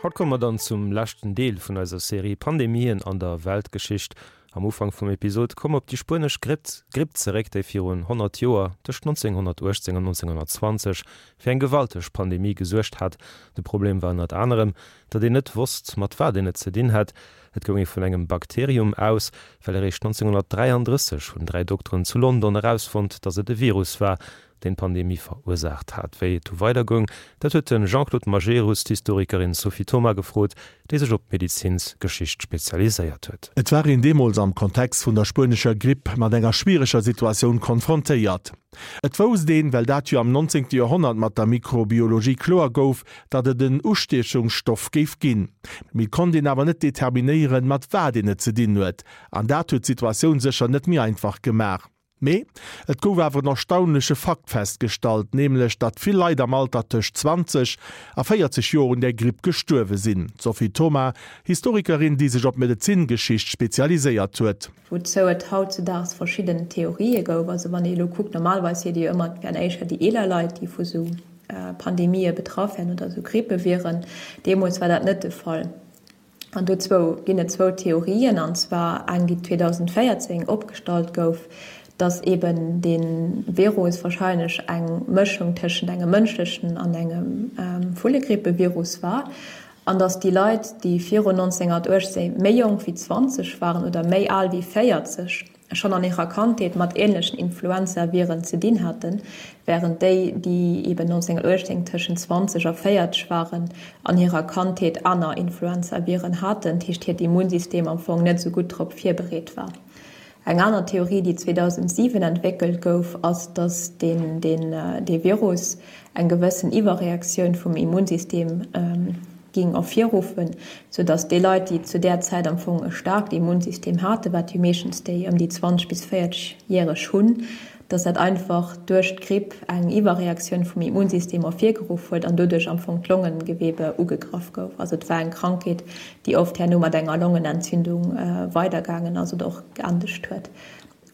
Haut komme mer dann zum leschten Deel vun eiser Serie Pandemien an der Weltgeschicht. Am Ufank vum Episod komm op déi spuenesch Gripp Gripp zeréck, déi virun 100 Joer, tëscht 1918 an 1920, fir eng gewalteg Pandemie gesuergt hat. De Problem war ënnert anerem, datt een net wosst, mat wat een et ze dinn hätt. Et goung ee vun engem Bakterium aus, well eréischt 1933 hunn 3 Dokteren zu London erausfonnt, datt et e Virus war, deen d'Pandemie verursaacht hat. Wéi et du weider goung, dat huet de Jean-Claude Majerus d'Historikerin Sophie Thoma gefrot, déi sech op d'Medezinsgeschicht spezialiséiert huet. Et war een deemools am Kontext vun der spuenescher Gripp mat enger schwiereger Situatioun konfrontéiert. Et wousst een, well dat jo am 19. Joerhonnert mat der Mikrobiologie kloer gouf, datt et en Ustiechungsstoff géif ginn. Mee et konnt een awer net determinéieren, mat wat een et ze dinn huet. An dat huet d'Situatioun sécher net méi einfach gemaach. Mee et gouf awer en erstaunleche Fakt festgestallt, nämlech datt vill Leit am Alter tëscht 20 a 40 Joer un där Gripp gestuerwe sinn. D'Sophie Thoma, Historikerin, déi sech op d'Medezingeschicht spezialiséiert huet. Wouzou et hautzudaags verschidden Theorië gouf. Also wann ee elo kuckt, normalerweis seet ee jo ëmmer, et wären éischter déi eeler Leit, déi vu sou Pandemië betraff wären oder sou Grippeviren. Deemools war dat net de Fall. An dozou ginn et zwou Theorien, an zwar eng, déi 2014 opgestallt gouf, dass eben dee Virus warscheinlech eng Mëschung tëschent engem mënschlechen an engem Vullegrippevirus war, an dass déi Leit, déi virun 1918 méi jonk wéi 20 waren oder méi al wéi 40, schonn an hirer Kandheet mat änlechen Influenzaviren ze dinn haten, wärend déi, déi eben 1918 tëschent 20 a 40 waren, an hirer Kandheet aner Influenzaviren haten, dat heescht hiert Immunsystem am Fong net esou gutt drop virbereet war. Eng aner Theorie, déi 2007 entwéckelt gouf, ass, datt dee Virus eng gewëssen Iwwerreaktioun vum Immunsystem ging ervirruffen, sou dass déi Leit, déi zu där Zäit am Fong e staarkt Immunsystem haten, wat jo meeschtens déi ëm déi 20 bis 40 järeg hunn, dass dat einfach duerch d'Gripp eng Iwwerreaktioun vum Immunsystem ervirgeruff huet an doduerch am Fong d'Longengewebe ugegraff gouf. Also et war eng Krankheet, déi oft herno mat enger Longenentzündung weidergaangen ass oder och geendegt huet.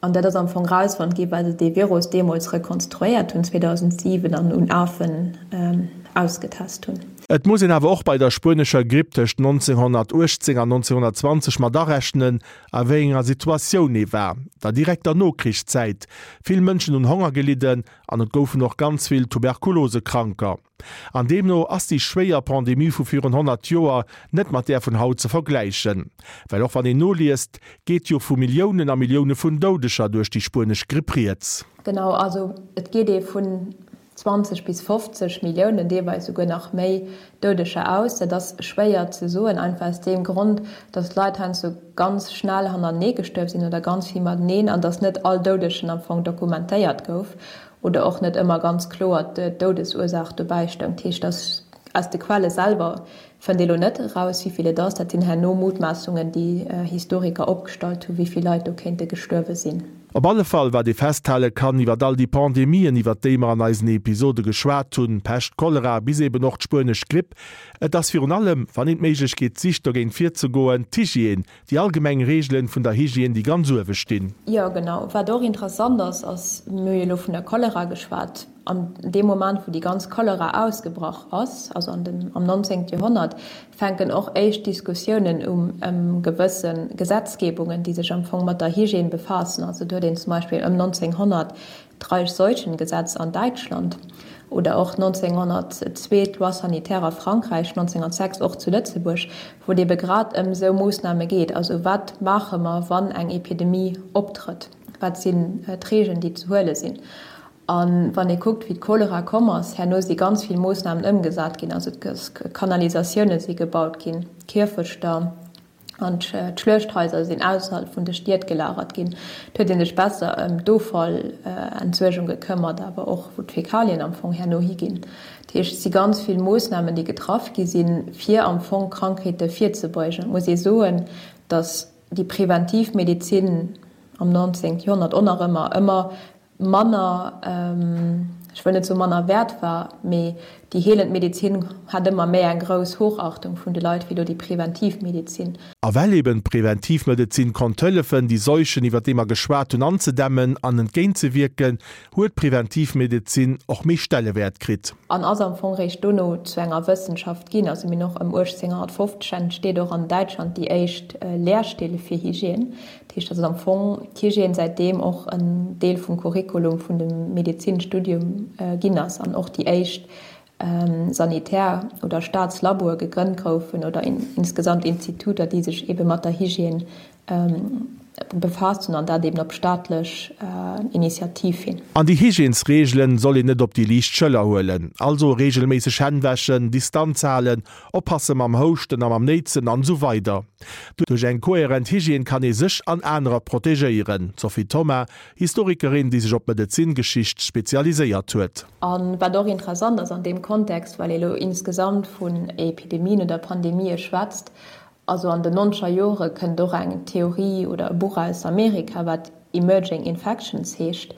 An dat ass am Fong erausfonnt gi well se dee Virus deemools rekonstruéiert hunn, 2007, an un Afen ausgetest hunn. Et muss een awer och bei der spuenescher Gripp tëscht 1918 an 1920 mat arechnen, a wéi enger Situatioun ee war. Der direkter Nokrichszäit. Vill Mënschen hunn Honger gelidden an et goufen och ganz vill Tuberkulosekranker. An deemno ass déi schwéier Pandemie vu virun 100 Joer net mat där vun haut ze vergläichen. Well och wann een noliest, geet jo vu Milliounen a Millioune vun Doudeger duerch déi spuenesch Gripp rieds. Genau, also et geet ee vun 20 bis 50 Milliounen, deelweis esouguer nach méi Doudeger aus. Dat ass schwéier ze soen, einfach aus deem Grond, datt d'Leit heiansdo ganz schnell hannertenee gestuerf sinn oder ganz vill mateneen an datt net all Doudegen am Fong dokumentéiert gouf. Oder och net ëmmer ganz kloer d'Doudesursaach dobäi stoung. Dat heescht, dass aus de Quelle selwer fënnt ee lo net eraus, wéi vill et ass. Dat sinn herno Mutmaassungen, déi Historiker opgestallt hunn, wéi vill Leit do kéinte gestuerwe sinn. Op alle Fall, wat ee festhale kann iwwer all déi Pandemien, iwwer déi mer an eisen Episode geschwat hunn, Pescht, Cholera bis eben och d'spuenesch Gripp, et ass virun allem, wann een d'Méiglechkeet sicht dogéint virzegoen, d'Hygiène, Déi allgemeng Reegelen vun der Hygiène, déi ganz uewe stinn. Jo, genau. Wat och interessant ass, ass, mir hu jo elo vun der Cholera geschwat, an deem Moment, wou déi ganz Cholera ausgebrach ass, also an dem, am 19. Joerhonnert, fänken och éischt Diskussiounen um ëm gewësse Gesetzgebungen, déi sech am Fong mat der Hygiène befaassen. Also do huet een zum Beispill ëm 1900 D'Reichsseuchengesetz an Däitschland oder och 1902 d'Loi sanitaire a Frankräich, 1906 och zu Lëtzebuerg, wou et ebe grad ëm esou Moossname geet. Also wat maache mer, wann eng Epidemie optrëtt? Wat sinn d'Regeln, déi ze huele sinn? A wann ee kuckt, wéi d'Cholera komm ass, herno si ganz vill Moossnamen ëmgesat ginn. Also Kanalisatioune si gebaut ginn, Kierfechter. An d'Schluechthaiser sinn ausserhalb vun de Stied gelagert ginn. Et huet ee sech besser ëm d'Offallentsuergung gekëmmert, awer och wou d'Fäkalien am Fong herno higinn. Dat heescht, et si ganz vill Moossnamen, déi getraff gi sinn, fir am Fong Krankheete virzebeugen. Et muss ee soen, datt déi preventiv Medezin am 19. Joerhonnert och nach ëmmer ëmmer manner, ech wëll net soe manner wäert war, mee. Déi heelend Medezin hat ëmmer méi eng grouss Hochachtung vun de Leit wéi elo déi preventiv Medezin. A well eben d'Preventivmedezin konnt hëllefen, déi Seuchen, iwwer déi mer geschwat hunn, anzedämmen an entgéintzewierken, huet d'Preventivmedezin och méi Stellewäert kritt. An ass am Fong réischt dono zu enger Wëssenschaft ginn. Also mir hunn och ëm 1850 entsteet och an Däitschland déi éischt Lehrstill fir Hygiène. Dat heescht, datt am Fong d'Hygiène säitdeem och en Deel vum Curriculum vun dem Medezinstudium ginn ass an och déi éischt Sanitär oder Staatslaboe gegrënnt goufen oder insgesamt Instituter, déi sech eebe mat der Hygiène befaasst hunn an dat eeben op staatlech Initiativ hin. An déi Hygiènesreegelen soll een net op déi liicht Schëller huelen. Also reegelméisseg Hänn wäschen, Distanz halen, oppasse mam Houschten a mam Néitsen an esou weider. Duerch eng kohärent Hygiène kann ee sech an anerer protegéieren. D'Sophie Thoma, Historikerin, déi sech op d'Medezingeschicht spezialiséiert huet. A wat och interessant ass an deem Kontext, well ee lo insgesamt vun Epidemien oder Pandemië schwätzt, Also an den nonzeger Jore kënnt och eng Theorie oder e Buch aus Amerika, wat Emerging Infections heescht,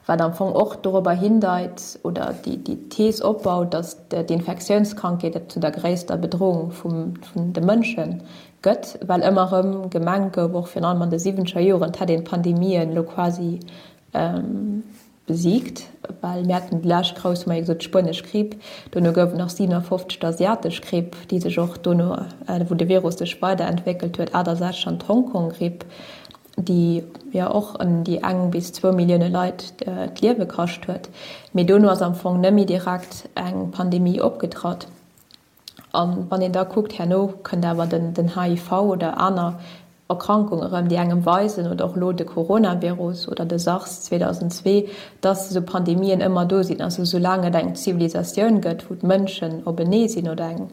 wat am Fong och dorobber hindeit oder déi Thees opbaut, datt d'Infektiounskrankheet zu der gréisster Bedrohung vun de Mënsche gëtt, well ëmmer erëm gemengt gouf, och virun allem an de siwwenzeger Joren, et hätt een d'Pandemien elo quasi Besiegt, well mir haten déi lescht grouss, hu mer jo gesot, d'spuenesch Gripp, dono gouf et nach 57 d'asiatesch Gripp, déi sech och dono, wou de Virus sech weiderentwéckelt huet, 68 an d'Hongkong-Gripp, déi jo och ëm déi eng bis zwou Millioune Leit d'Liewe kascht huet. Mee dono ass am Fong net méi direkt eng Pandemie opgetratt. An wann een da kuckt, herno kënnt awer den HIV oder aner Erkrankung erëm, déi engem weisen, oder och elo de Coronavirus oder de SARS 2002, dass esou Pandemien ëmmer do sinn. Also soulaang et eng Zivilisatioun gëtt, wou d'Mënschen openee sinn oder eng,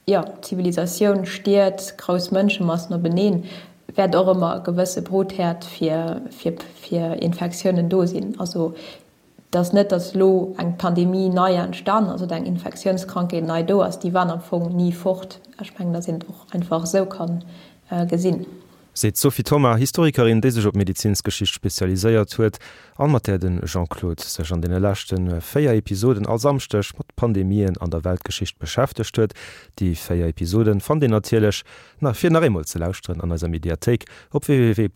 jo, Zivilisatioun, Stied, grouss Mënschemassen openeen, wäert och ëmmer e gewësse Brutherd fir Infektiounen do sinn. Also Et ass net, datt elo eng Pandemie nei entstanen ass oder eng Infektiounskrankheet nei do ass. Déi waren am Fong ni fort. Ech mengen, datt een et och einfach esou ka gesinn. Seet d'Sophie Thoma, Historikerin, déi sech op Medezinsgeschicht spezialiséiert huet an mat där de Jean-Claude sech an deene leschte 4 Episoden all Samschdeg mat Pandemien an der Weltgeschicht beschäftegt huet. Déi 4 Episoden fannt Dir natierlech, fir nach eemol ze lauschteren, an eiser Mediathéik op www.